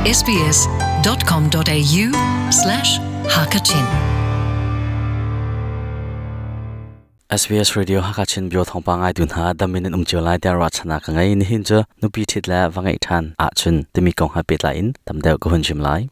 sbs.com.au slash hakachin SBS Radio Hakachin bio thawngpang ngai tu hna damin in um cio lai tiah ruahchannak ka ngei. Nihin cu nupi ṭhit le va ngeih ṭhan ahcun timi kong he pehtlai in tam deuh ka hun chim lai.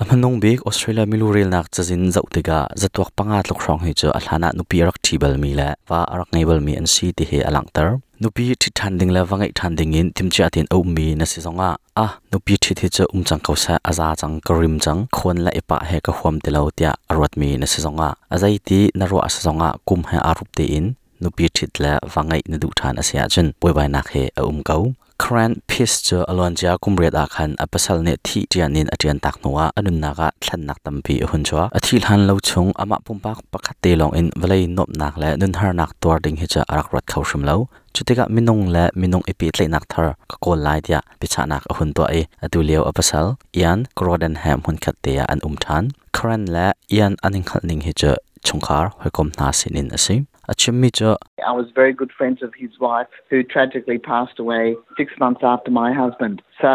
A hmanung bik Australia milu relnak cazin zoh tikah zatuak panga tluk hrawng hi cu a hlan ah nupi a rak ṭhi balmi le va a rak ngei balmi an si ti hi a langhter. Nupi ṭhit ṭhan ding le va ngeih ṭhan ding in timhcia tein a ummi na si zongah a nupi ṭhit hi cu um cang ko seh, a za cang, ka rim cang, khawn le i pah he ka huam ti lo tiah a ruatmi na si zongah a zeiti na ruah a si zongah kum he aa rup tein nupi ṭhit le va ngeih na duh ṭhan a si ahcun buaibainak he a um ko. Karen Peace cu a luancia kum riat ah khan a pasal nih thih ṭian in a ṭian tak hnuah a nunnak ah thlennak tampi a hun chuak. A thih hlan lo chung amah pumpak pakhat te lawng in vawlei nuamhnak le nunharnak tuar ding hi cu a rak ruat kho hrim lo. Cutikah minung le minung i pehtlaihnak thar ka kawl lai tiah biachahnak a hun tuah i atu lio a pasal Ian Gordon he hmunkhat te ah an um ṭhan. Karen le Ian an i hngalh ning hi cu chungkhar hawikom hna sinin a si. A chimmi cu I was very good friends of his wife who tragically passed away 6 months after my husband. So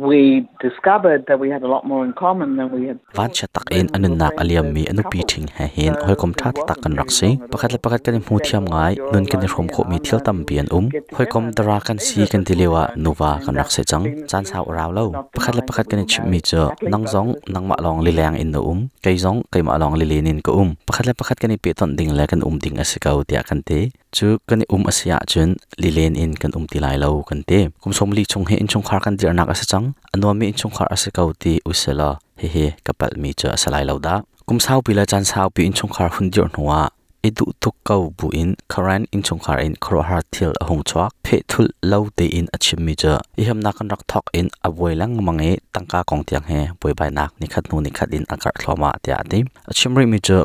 we discovered that we had a lot more in common than we had Vanchiat tak in a nunnak a liammi a nupi ṭhing he hin hawikom ṭha taktak kan rak si. Pakhat le pakhat kan i hmu thiam ngai, nun kan i hrawm khawhmi thil tampi an um. Hawikom dara kan si kan ti lio ah nuva kan rak si cang. Caan sau a rau lo. Pakhat le pakhat kan i chimhmi cu nang zong nangmah lawng lileng in na um, kei zong keimah lawng lilen in ka um. Pakhat le pakhat kan i pehtonh ding le kan um ding a si ko tiah kan ti. Cu kan i um a si ahcun lilen in kan um ti lai lo kan ti. Kum 40 chung hi innchungkhar kan dirhnak a si cang. A nuammi innchungkhar a si ko ti usilaw hihi ka palhmi cu a si lai lo dah. Kum saupi le caan saupi innchungkhar hun dirh hnuah i duh tuk ko buin Karen innchungkhar in khuaruahhar thil a hung chuak. Phehthulh lo tein a chimmi cu i hamnak kan rak thawk in a buai lengmang i tangka kong tiang he buaibainak nikhat hnu nikhat in a karh thluahmah tiah a ti. A chim rihmi cu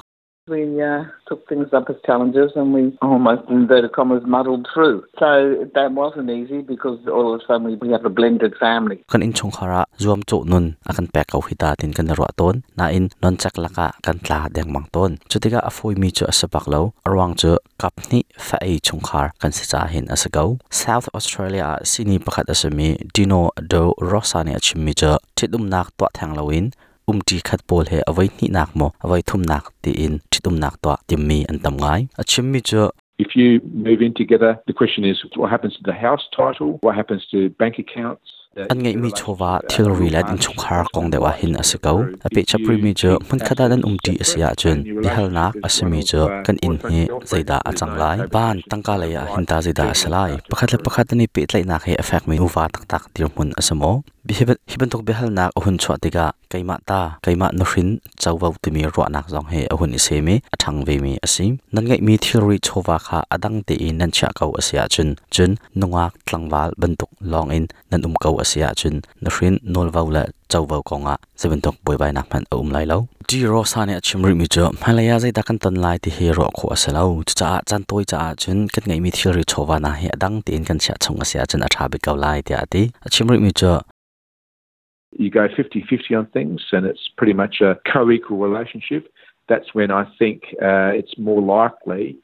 We took things up as challenges and we almost, in inverted commas, muddled through. So that wasn't easy because all of a sudden we have a blended family. Kan innchungkhar ah zuamcawh nun a kan pek ko hi ta tin kan i ruah tawn. Nain noncek lakah kan tla dengmang tawn. Cutikah a fawimi cu a si bak lo. A ruang cu kap hnih fa ei chungkhar kan si ca hin a si ko. South Australia ah sihni pakhat a simi Dino Do Rosa nih a chimmi cu ṭhitumnak tuah theng loin umṭi khat pawl he a voi hnihnak maw a voi thumnak tiin ṭhitumnak tuah timmi an tam ngai. A chimmi cu If you move in together, the question is what happens to the house title, what happens to bank accounts, An ngeihmi chawva thilri le innchungkhar kong deuh ah hin a si ko. A pehchap rihmi cu hmunkhat ah nan umṭi a si ahcun biahalnak a simi cu kan inn hi zeidah a cang lai? Van tangka lei ah hin ta zeidah a si lai? Pakhat le pakhat an i pehtlaihnak hi a fekmi nuva taktak dirhmun a si maw? Hi bantuk biahalnak a hun chuah tikah keimah ta, keimah nuhrin covo timi ruahnak zong hi a hun i sem i a ṭhang vemi a si. Nan ngeihmi thilri chawva kha a dang tein nan chiah ko a si ahcun, cun nungak tlangval bantuk lawngin nan um ko a si ahcun nuhrin nawlvo le covo kongah zeibantuk buaibainak hmanh a um lai lo. Di Rosa nih a chim rihmi cu hmailei ah zeidah kan ton lai ti hi ruah khawh a si lo. Cucaah caan tawi caah cun kan ngeihmi thilri chawva hna hi a dang tein kan chiah chung a si ahcun a ṭha bik ko lai tiah a ti. A chim rihmi cu You go 50-50 on things and it's pretty much a co-equal relationship. That's when I think it's more likely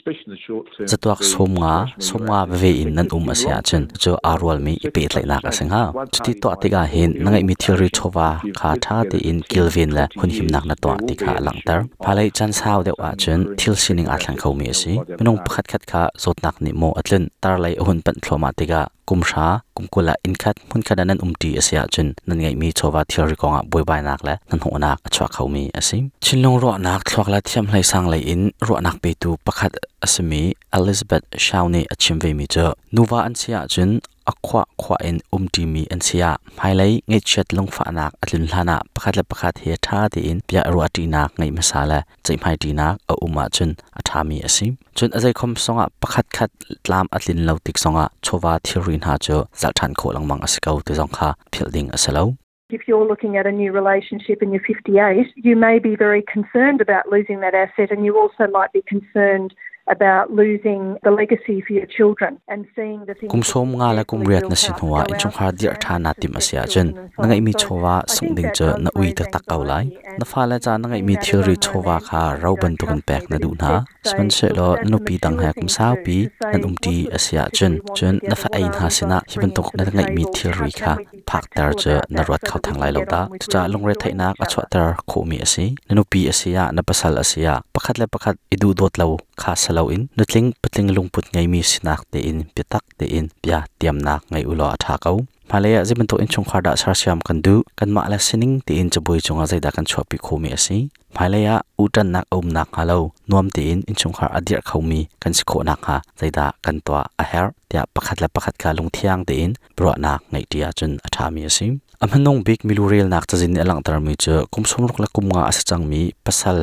Catuak 50, 50 veve in nan um a si ahcun cu aa rualmi i pehtlaihnak a si hnga. Cuti tuah tikah hin na ngeihmi thilri chawva kha ṭha tein kilven le hunhimnak na tuah ti kha a langhter. Hmailei caan sau deuh ahcun thil sining aa thleng khomi a si. Minung pakhatkhat kha zawtnak nih maw a tlunh, tarlei a hun panh thluahmah tikah kum hra, kum 20 ah innkhat hmunkhat ah nan umṭi a si ahcun nan ngeihmi chawva thilri kongah buaibainak le hnahnawhnak a chuak khomi a si. Thinlung ruahnak thluak le thiamhlei sang lei in ruahnak petu pakhat a simi Elizabeth Shao nih a chim vemi cu nuva an si ahcun a khuah khuah in umṭimi an si ah hmailei ngaihchiat lungfahnak a tlun hlanah pakhat le pakhat he ṭha tein bia ruahṭinak ngeih hmasa le ceihmaiṭinak a um ahcun a ṭhami a si. Cun a zeikhom zongah pakhatkhat tlam a tlin lo tik zongah chawva thilri hna cu zalh ṭhan khawh lengmang a si ko ti zong kha philh ding a si lo. If you're looking at a new relationship and you're 58, you may be very concerned about losing that asset and you also might be concerned about losing the legacy for your children and seeing the things Kum 50 le kum 8 na si hnuah innchungkhar dirh ṭhan naa timh a si ahcun na ngeihmi chawva sungh ding cu na ui taktak ko lai. Na fale ca na ngeihmi thilri chawva kha ro bantukin pek na duh hna. Sihmanhsehlaw na nupi dang he kum saupi nan umṭi a si ahcun cun na fa ei hna sinah hi bantuk na ngeihmi thilri kha phakter cu na ruat kho theng lai lo dah. Cucaah lungretheihnak a chuahter khawhmi a si. Na nupi a si ah, na pasal a si ah pakhat le pakhat i duhdawt lo kha si loin nutling patling lungput ngeimi sinak tein biatak tein bia tiamnak ngei u law a ṭha ko. Hmailei ah zei bantuk innchungkhar dah sersiam kan duh? Kanmah le sining tein cabuai cungah zeidah kan chuahpi khawhmi a si? Hmailei ah uhṭannak a um nakhnga lo nuam tein innchungkhar a dirh khomi kan si khawh nakhnga zeidah kan tuah a herh tiah pakhat le pakhat kha lungthiang tein ruahnak ngeihṭi ahcun a ṭhami a si. A hmanung bik milu relnak cazin nih a langhtermi cu kum 60 le kum nga a si cangmi pasal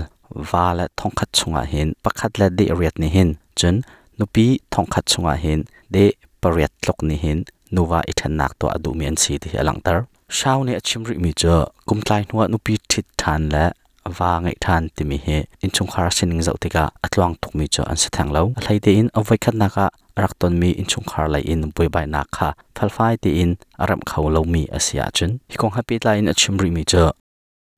va le thongkhat chungah hin pakhat le deh riat nih hin cun nupi thongkhat chungah hin deh pariat tluk nih hin nuva i ṭhennak tuah a duhmi an si ti hi a langhter. Shao nih a chim rihmi cu kumtlai hnuah nupi ṭhit ṭhan le va ngeih ṭhan timi hi innchungkhar sining zoh tikah a tluang tukmi cu an si theng lo. A hlei tein a voikhatnak ah a rak tonmi innchungkhar lei in buaibainak kha felfai tein a remh kho lomi a si ahcun hi kong he pehtlai in a chim rihmi cu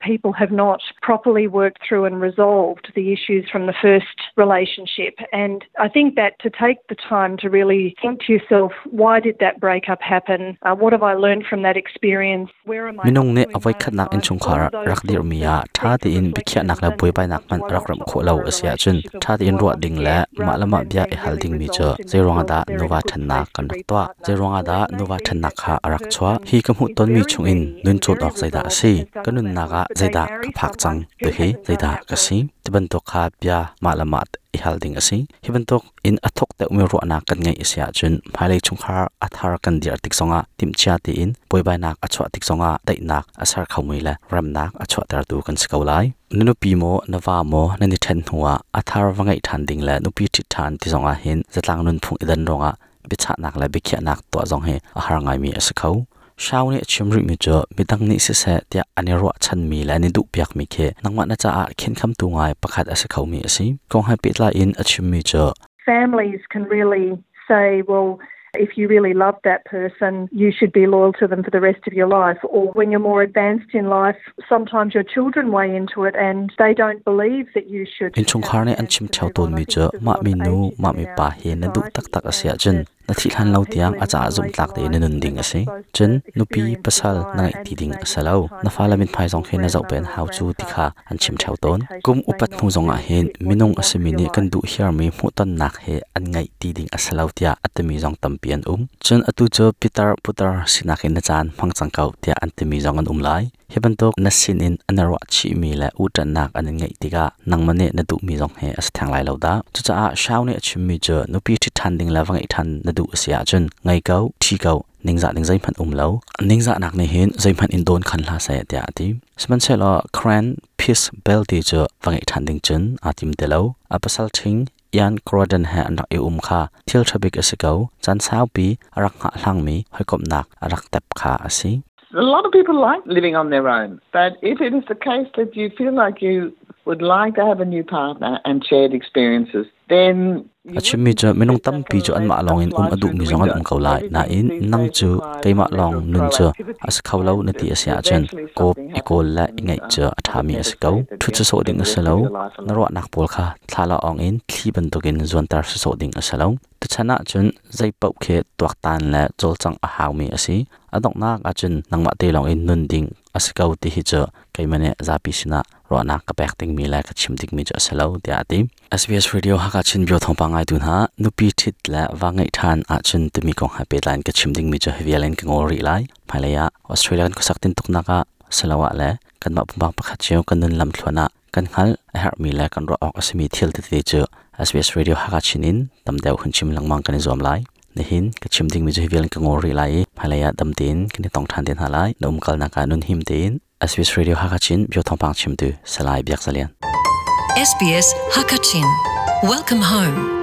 people have not properly worked through and resolved the issues from the first relationship. And I think that to take the time to really think to yourself, why did that breakup happen? What have I learned from that experience? Where am I? Minung nih a voikhatnak innchungkhar rak dirhmi ah ṭha tein biakhiahnak le buaibainak hmanh rak remh khawh lo a si ahcun ṭha tein ruah ding le mah le mah bia i hal dingmi cu zeiruangah dah nuva ṭhennak kan rak tuah? Zeiruangah dah nuva ṭhennak kha a rak chuah? Hi ka hmuhtonmi chungin nun cawn awk zeidah a si? Ka nunnak ah zeidah ka phak cang? Tihi zeidah ka si? Ti bantuk kha bia mah le mah i hal ding a si. Hi bantuk in a thuk deuhmi ruahnak kan ngeih a si ahcun hmailei chungkhar a thar kan dirh tik zongah timhcia tein buaibainak a chuah tik zongah daihnak a ser khomi le remnak a chuahtertu kan si ko lai. Na nupi maw na va maw nan i ṭhen hnuah a thar va ngeih ṭhan ding le nupi ṭhit ṭhan ti zongah hin zatlang nunphung i dan ruangah biachahnak le biakhiahnak tuah zong hi a har ngaimi a si kho. Shao nih a chim rihmi cu midang nih siseh tiah an i ruahchanmi le an i duhpiakmi khi nangmah na caah khenkhamtu ngai pakhat a si khomi a si. Kong he pehtlai in a chimmi cu Families can really say, well, if you really love that person, you should be loyal to them for the rest of your life. Or when you're more advanced in life, sometimes your children weigh into it and they don't believe that you should. Innchungkhar nih an chim ṭheo tawnmi cu mah minu, mah mipa hi na duh taktak a si ahcun na thih hlan lo tiang a caah zumhtlak tein na nun ding a si. Cun nupi, pasal na ngeih ti ding a si lo. Na fale mithmai zong khi na zoh pen hau cu ti kha an chim ṭheo tawn. Kum upat hnu zongah hin minung a simi nih kan duh hiarmi hmuhtonnak he an ngeih ti ding a si lo tiah a timi zong tampi an um. Cun atu cu pitar putar sinak in na caan hmang cang ko tiah an timi zong an um lai. Hi bantuk na sinin an ruah chihmi le uhṭanhnak an in ngeih tikah nangmah nih na duhmi zong hi a si theng lai lo dah. Cucaah Shao nih a chimmi cu nupi ṭhit ṭhan ding le va ngeih ṭhan na duh a si ahcun ngei ko, ṭhi ko, ningzah ding zeihmanh um lo. Ningzahnak nih hin zeihmanh in dawn khan hlah seh tiah a ti. Sihmanhsehlaw Karen Peace Bell ti cu va ngeih ṭhan ding cun aa tim ti lo. A pasal ṭhing Ian Croydon he an rak i um kha thil ṭha bik a si ko. Caan saupi a rak hngahhlangmi hawikomhnak a rak tep kha a si. A lot of people like living on their own, but if it is the case that you feel like you would like to have a new partner and shared experiences, then A chimmi cu minung tampi cu anmah lawngin um a duhmi zong an um ko lai. Nain nang cu keimah lawng nun cu a si kho lo na ti a si ahcun kawp i kawl le i ngeih cu a ṭhami a si ko. Ṭhut sawsawh ding a si lo. Na ruahnak pawl kha thla awng in thli bantukin zuanter sawsawh ding a si lo. Tuchan ahcun zei paoh khi tuaktan le cawlcangh a haumi a si. A donghnak ahcun nangmah te lawngin nun ding a si ko ti hi cu keimah nih zapi sinah ruahnak ka pek dingmi le ka chim dingmi cu a si lo tiah a ti. SBS Radio Hakha Chin Bio thawngpang ngaitu hna nupi ṭhit le va ngeih ṭhan ahcun timi kong he pehtlai in ka chim dingmi cu hi vial in ka ngawl rih lai. Hmailei ah Australia kan khuasak tintuknak ah siloah le kanmah pumpak pakhat cio kan nun lamthluan ah kan hngalh a herhmi le kan ruah awk a simi thil tete cu SBS Radio Hakha Chin in tam deuh hun chim lengmang kan i zuam lai. Nihin ka chim dingmi cu hi vial in ka ngawl rih lai i hmailei ah dam tein kan i tong ṭhan te hna lai. Na umkalnak ah nun him tein SBS Radio Hakha Chin bio thawngpang chimtu Salai Biak Zalian. SBS Hakachin. Welcome home.